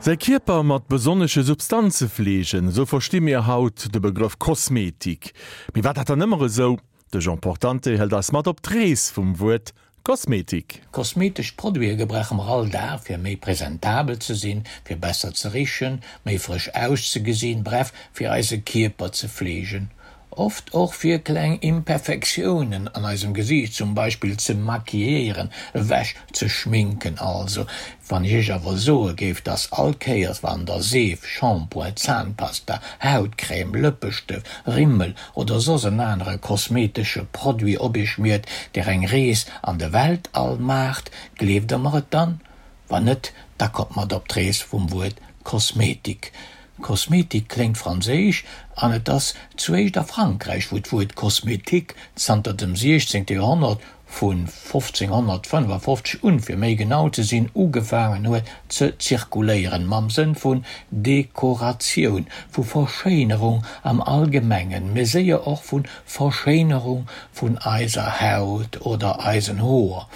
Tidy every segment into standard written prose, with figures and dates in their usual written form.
Säi Kierper mat besonnesche Substanze fleegen, esou versti mir haut de Begrëff Kosmetik. Mee war dat dann ëmmer esou? De Jean Portante hëlt eis mat op d'Rees vum Wuert Kosmetik. Kosmetesch Produite gebrauche mer all Dag fir méi presentabel ze sinn, fir besser ze richen, méi frësch auszegesinn, bref fir eise Kierper ze fleegen. Oft och fir kleng Imperfektiounen an eisem Gesiicht zum Beispill ze maquilléieren, ewech ze schminken also. Wann ech iech awer soe géif, dass all Kéiers wann der Seef, Shampoing, Zahnpasta, Hautcrème, Lëppestëft, Rimmel oder soss en anere kosmetesche Produit op iech schmiert, der eng Rees an de Weltall maacht, gleeft der mer et dann? Wann net, da kommt mat op d'Rees vum Wuert Kosmetik. Kosmetik kléngt franséisch an et ass zuéischt a Frankräich, wou d'Wuert Kosmetik zanter dem 16. Joerhonnert, vu 1555 un, fir méi genau ze sinn, ugefaangen huet ze zirkuléieren, mam Sënn vun Dekoratioun, vu Verschéinerung am Allgemengen, mee séier och vu Verschéinerung vun eiser Haut oder eisen Hoer.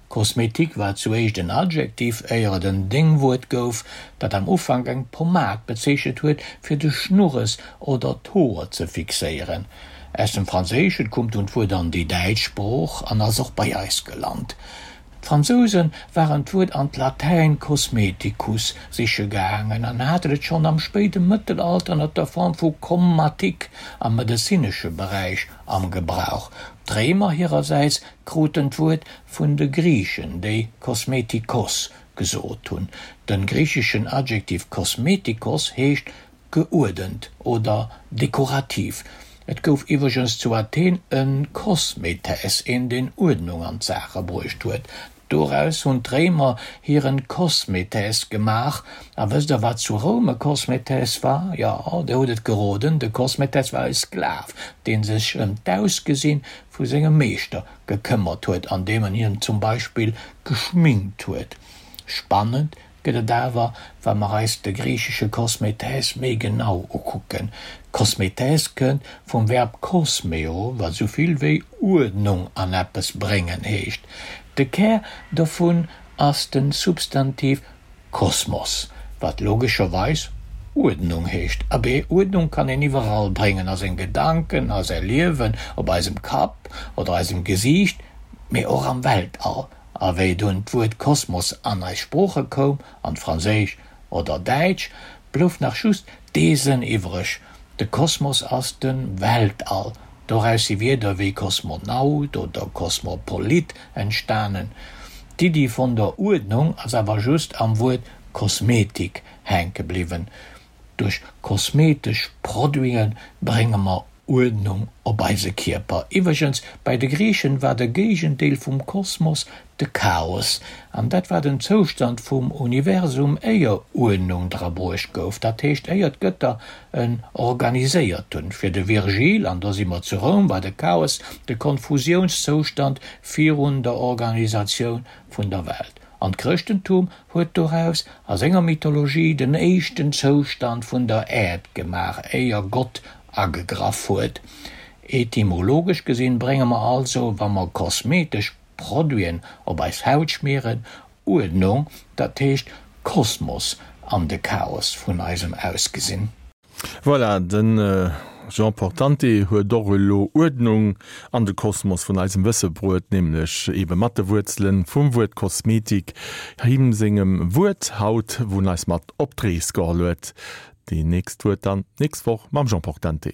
Kosmetik war zuéischt en Adjektiv, éier et en Déngwuert gouf, dat am Ufank eng Pomad bezeechent huet, fir de Schnurres oder d'Hoer ze fixéieren. Aus dem Franséischen koum dunn d'Wuert an déi däitsch Sprooch an ass och bei eis gelant. D'Fransouse waren d'Wuert an d'Latäin cosmeticus siche gaangen an haten et schonn am spéide Mëttelalter ënner der Form vu commatique am medezinesche Beräich am Gebrauch. D'Réimer hirersäits kruten d'Wuert vun de Griichen, déi kosmetikos gesot hunn. De griicheschen Adjektiv kosmetikos heescht geuerdent oder dekorativ. Et gouf iwwregens zu Athen e Kosmetes, een deen Uerdnung an d'Saache bruecht huet. Doraus hunn d'Réimer hiren Kosmetes gemaach. A wësst der wat zu Roum e Kosmetes war? Jo, der hutt et geroden, de Kosmetes war e Sklav, deen sech ëm d'Ausgesinn vu sengem Meeschter gekëmmert huet, andeem en hien zum Beispill geschminkt huet. Spannend gëtt et awer, wa mer eis de griichesche kosmetes méi genau ukucken. Kosmetes kënnt vum Verb kosmeo, wat esou vill wéi Uerdnung an eppes bréngen heescht. De Kär dovun ass de Substantiv kosmos, wat logescherweis Uerdnung heescht. Abee, Uerdnung kann een iwwerall bréngen, a seng Gedanken, a säi Liewen, op eisem Kapp oder eisem Gesiicht, mee och am Weltall. A wéi dunn d'Wuert Kosmos an eis Sprooche koum, an d'Franséisch oder Däitsch, blouf nach just dee Sënn iwwreg, De Kosmos ass de Weltall. Doraus si Wierder wéi Kosmonaut oder Kosmopolit entstanen. D'Iddi vun der Uerdnung ass awer just am Wuert Kosmetik hänke bliwwen. Duerch kosmetesch Produite brénge mer Uerdnung op eise Kierper. Iwwregens, bei de Griichen war de Géigendeel vum Kosmos de Chaos, an dat war den Zoustand vum Universum éier Uerdnung dra bruecht gouf, dat heescht éier d'Gëtter en organiséiert hunn. Fir de Virgil, an do si mer zu Roum, war de Chaos de Konfusiounszoustand virun der Organisatioun vun der Welt. An d'Chrëschtentum huet doraus a senger Mythologie den éischten Zoustand vun der Äerd gemaach, éier Gott agegraff huet. Etymologesch gesinn brénge mer also, wa mer kosmetesch Produiten op eis Haut schmieren, Uerdnung, dat heescht Kosmos an de Chaos vun eisem Ausgesinn. Voilà, de Jean Portante huet och elo Uerdnung an de Kosmos vun eisem Wësse bruet, nämlech ebe mat de Wuerzele vum Wuert Kosmetik, him sengem Wuert haut, wou en eis mat op d'Rees geholl huet. Déi nächst Wuert dann d'nächst Woch mam Jean Portante.